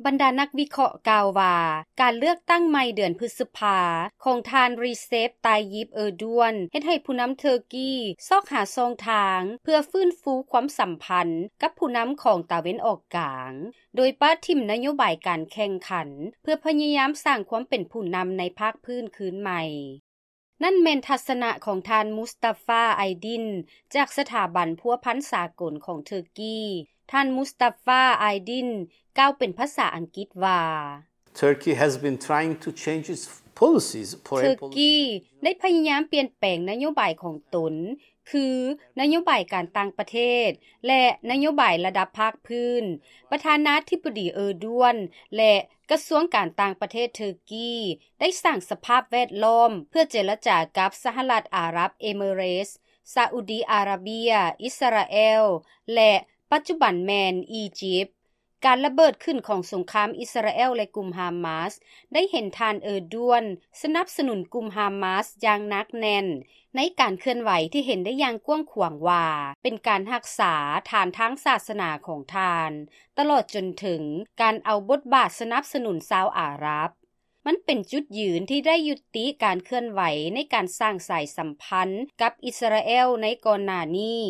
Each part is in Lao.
ບັນດານັກວິເຄາະກ່າວວ່າ ການເລືອກຕັ້ງໃໝ່ເດືອນພຶດສະພາຂອງທ່ານ Recep Tayyip Erdogan ເຮັດໃຫ້ຜູ້ນຳເທີກີຊອກຫາຊ່ອງທາງເພື່ອຟື້ນຟູຄວາມສຳພັນກັບຜູ້ນຳຂອງຕາເວັນອອກກາງ ໂດຍປະຖິ້ມນະໂຍບາຍການແຂ່ງຂັນ ເພື່ອພະຍາຍາມສ້າງຄວາມເປັນຜູ້ນຳໃນພາກພື້ນຄືນໃໝ່. ນັ້ນແມ່ນທັດສະນະຂອງທ່ານ Mustafa Aydin ຈາກສະຖາບັນພົວພັນສາກົນຂອງເທີກີ. ທ່ານ Mustafa Aydin ກ່າວເປັນພາສາອັງກິດວ່າ Turkey has been trying to change its policies, foreign ເທີ policy. ກີໄດ້ພະຍາຍາມປ່ຽນແປງນະໂຍບາຍຂອງຕົນ ຄືນະໂຍບາຍການຕ່າງປະເທດ ແລະ ນະໂຍບາຍລະດັບພາກພື້ນ. ປະທານາທິບໍດີ Erdogan ແລະ ກະຊວງການຕ່າງປະເທດເທີກີ ໄດ້ສ້າງສະພາບແວດລ້ອມເພື່ອເຈລະຈາກັບສະຫະລັດອາຣັບເອມິເຣດ, ຊາອຸດີອາຣາເບຍ, ອິດສະຣາແອລ ແລະ ປັດຈຸບັນແມ່ນອີຢິບ. ການລະເບີດຂຶ້ນຂອງສົງຄາມອິດສະຣາແອລ ແລະ ກຸ່ມຮາມາສ ໄດ້ເຫັນທ່ານ Erdogan ສະໜັບສະໜູນກຸ່ມຮາມາສຢ່າງໜັກແໜ້ນ ໃນການເຄື່ອນໄຫວທີ່ເຫັນໄດ້ຢ່າງກວ້າງຂວາງວ່າ ເປັນການຮັກສາຖານທາງສາສະໜາຂອງທ່ານ ຕະຫຼອດຈົນເຖິງການເອົາບົດບາດສະໜັບສະໜູນຊາວອາຣັບ. ມັນເປັນຈຸດຢືນທີ່ໄດ້ຍຸຕິການເຄື່ອນໄຫວໃນການສ້າງສາຍສຳພັນກັບອິດສະຣາແອລໃນກ່ອນໜ້ານີ້,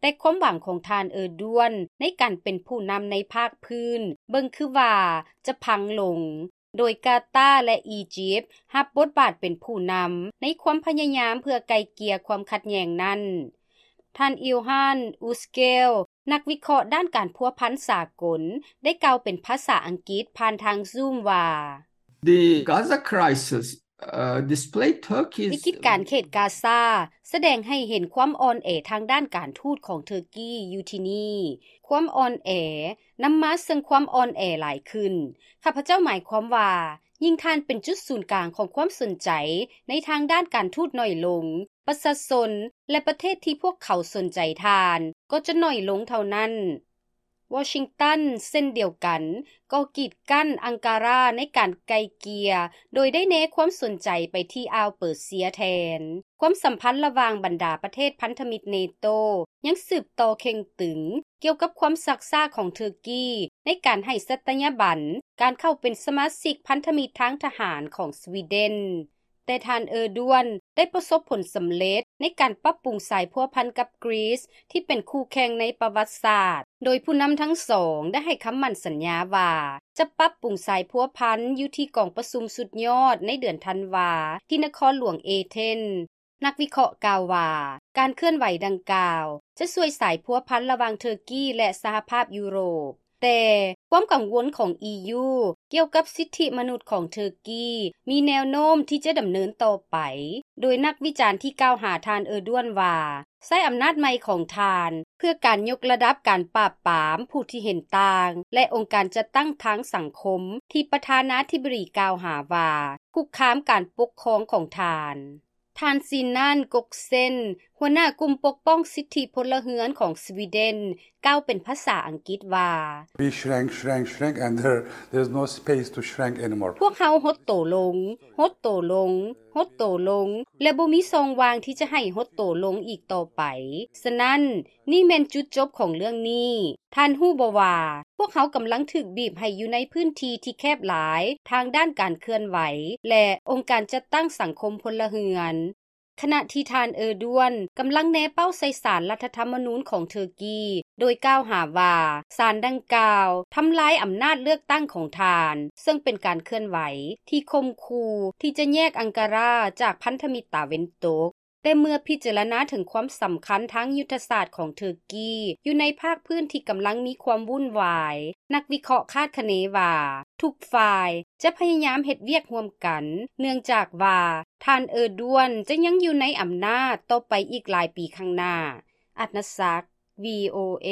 ແຕ່ຄວາມຫວັງຂອງທ່ານ Erdogan ໃນການເປັນຜູ້ນຳໃນພາກພື້ນ ເບິ່ງຄືວ່າຈະພັງລົງ, ໂດຍກາຕາ ແລະ ອີຢິບ ຮັບບົດບາດເປັນຜູ້ນຳໃນຄວາມພະຍາຍາມເພື່ອໄກ່ເກ່ຍຄວາມຂັດແຍ່ງນັ້ນ. ທ່ານ Ilhan Üsgel ນັກວິເຄາະດ້ານການພົວພັນສາກົນ ໄດ້ກ່າວເປັນພາສາອັງກິດຜ່ານທາງ Zoom ວ່າ The Gaza crisis, uh, display Turkey's ວິກິດການເຂດກາຊາ ສະແດງໃຫ້ເຫັນຄວາມອ່ອນແອທາງດ້ານການທູດຂອງເທີກີຢູ່ທີ່ນີ້. ຄວາມອ່ອນແອນຳມາເຊິ່ງຄວາມອ່ອນແອຫຼາຍຂຶ້ນ. ຂ້າພະເຈົ້າໝາຍຄວາມວ່າ ຍິ່ງທ່ານເປັນຈຸດສູນກາງຂອງຄວາມສົນໃຈໃນທາງດ້ານການທູດໜ້ອຍລົງ, ປະຊາຊົນ ແລະ ປະເທດທີ່ພວກເຂົາສົນໃຈທ່ານກໍຈະໜ້ອຍລົງເທົ່ານັ້ນ. ວໍຊິງຕັນເຊັ່ນດຽວກັນກໍກີດກັ້ນອັງກາຣາໃນການໄກ່ເກ່ຍ ໂດຍໄດ້ແນຄວາມສົນໃຈໄປທີ່ອ່າວເປີເຊຍແທນ. ຄວາມສຳພັນລະຫວ່າງບັນດາປະເທດພັນທະມິດເນໂຕຍັງສືບຕໍ່ເຄັ່ງຕຶງ ກ່ຽວກັບຄວາມຊັກຊ້າຂອງເທີກີໃນການໃຫ້ສັດຕະຍາບັນການເຂົ້າເປັນສະມາຊິກພັນທະມິດທາງທະຫານຂອງສະວີເດັນ. ແຕ່ທ່ານ Erdogan ໄດ້ປະສົບຜົນສຳເລັດໃນການປັບປຸງສາຍພົວພັນກັບກຣີສທີ່ເປັນຄູ່ແຂ່ງໃນປະຫວັດສາດ, ໂດຍຜູ້ນຳທັງສອງໄດ້ໃຫ້ຄຳໝັ້ນສັນຍາວ່າຈະປັບປຸງສາຍພົວພັນຢູ່ທີ່ກອງປະຊຸມສຸດຍອດໃນເດືອນທັນວາທີ່ນະຄອນຫຼວງເອເທນ. ນັກວິເຄາະກ່າວວ່າ ການເຄື່ອນໄຫວດັ່ງກ່າວຈະຊ່ວຍສາຍພົວພັນລະຫວ່າງເທີກີ ແລະ ສະຫະພາບຢູໂຣບ. ແຕ່ຄວາມກັງວົນຂອງ ອີຢູ ກ່ຽວກັບສິດທິມະນຸດຂອງເທີກີ ມີແນວໂນ້ມທີ່ຈະດຳເນີນຕໍ່ໄປ, ໂດຍນັກວິຈານທີ່ກ່າວຫາທ່ານ Erdogan ວ່າ ໃຊ້ອຳນາດໃໝ່ຂອງທ່ານເພື່ອການຍົກລະດັບການປາບປາມຜູ້ທີ່ເຫັນຕ່າງ ແລະ ອົງການຈັດຕັ້ງທາງສັງຄົມທີ່ປະທານາທິບໍດີກ່າວຫາວ່າຄຸກຄາມການປົກຄອງຂອງທ່ານ. ທ່ານ Sinan Göksen ຫົວໜ້າກຸ່ມປົກປ້ອງສິດທິພົນລະເຮືອນຂອງສະວີເດັນ ກ່າວເປັນພາສາອັງກິດວ່າ We shrank, shrank, shrank, and there, there's no space to shrank anymore. ພວກເຮົາຫົດໂຕລົງ, ຫົດໂຕລົງ, ຫົດໂຕລົງ ແລະ ບໍ່ມີຊ່ອງວ່າງທີ່ຈະໃຫ້ຫົດໂຕລົງອີກຕໍ່ໄປ. ສະນັ້ນ, ນີ້ແມ່ນຈຸດຈົບຂອງເລື່ອງນີ້. ທ່ານຮູ້ບໍ່ວ່າ ພວກເຮົາກຳລັງຖືກບີບໃຫ້ຢູ່ໃນພື້ນທີ່ທີ່ແຄບຫຼາຍທາງດ້ານການເຄື່ອນໄຫວ ແລະ ອົງການຈັດຕັ້ງສັງຄົມພົນລະເຮືອນ. ຂະນະທີ່ທ່ານ Erdogan ກຳລັງແນເປົ້າໃສ່ສານລັດຖະທຳມະນູນຂອງເທີກີ ໂດຍກ່າວຫາວ່າ ສານດັ່ງກ່າວທຳລາຍອຳນາດເລືອກຕັ້ງຂອງທ່ານ, ເຊິ່ງເປັນການເຄື່ອນໄຫວທີ່ຂົ່ມຂູ່ທີ່ຈະແຍກອັງກາຣາຈາກພັນທະມິດຕາເວັນຕົກ. ແຕ່ເມື່ອພິຈາລະນາເຖິງຄວາມສຳຄັນທາງຍຸດທະສາດຂອງເທີກີຢູ່ໃນພາກພື້ນທີ່ກຳລັງມີຄວາມວຸ້ນວາຍ, ນັກວິເຄາະຄາດຄະເນວ່າ ທຸກຝ່າຍຈະພະຍາຍາມເຮັດວຽກຮ່ວມກັນ, ເນື່ອງຈາກວ່າທ່ານ Erdogan ຈະຍັງຢູ່ໃນອຳນາດຕໍ່ໄປອີກຫຼາຍປີຂ້າງໜ້າ. ອັດນະສັກ VOA.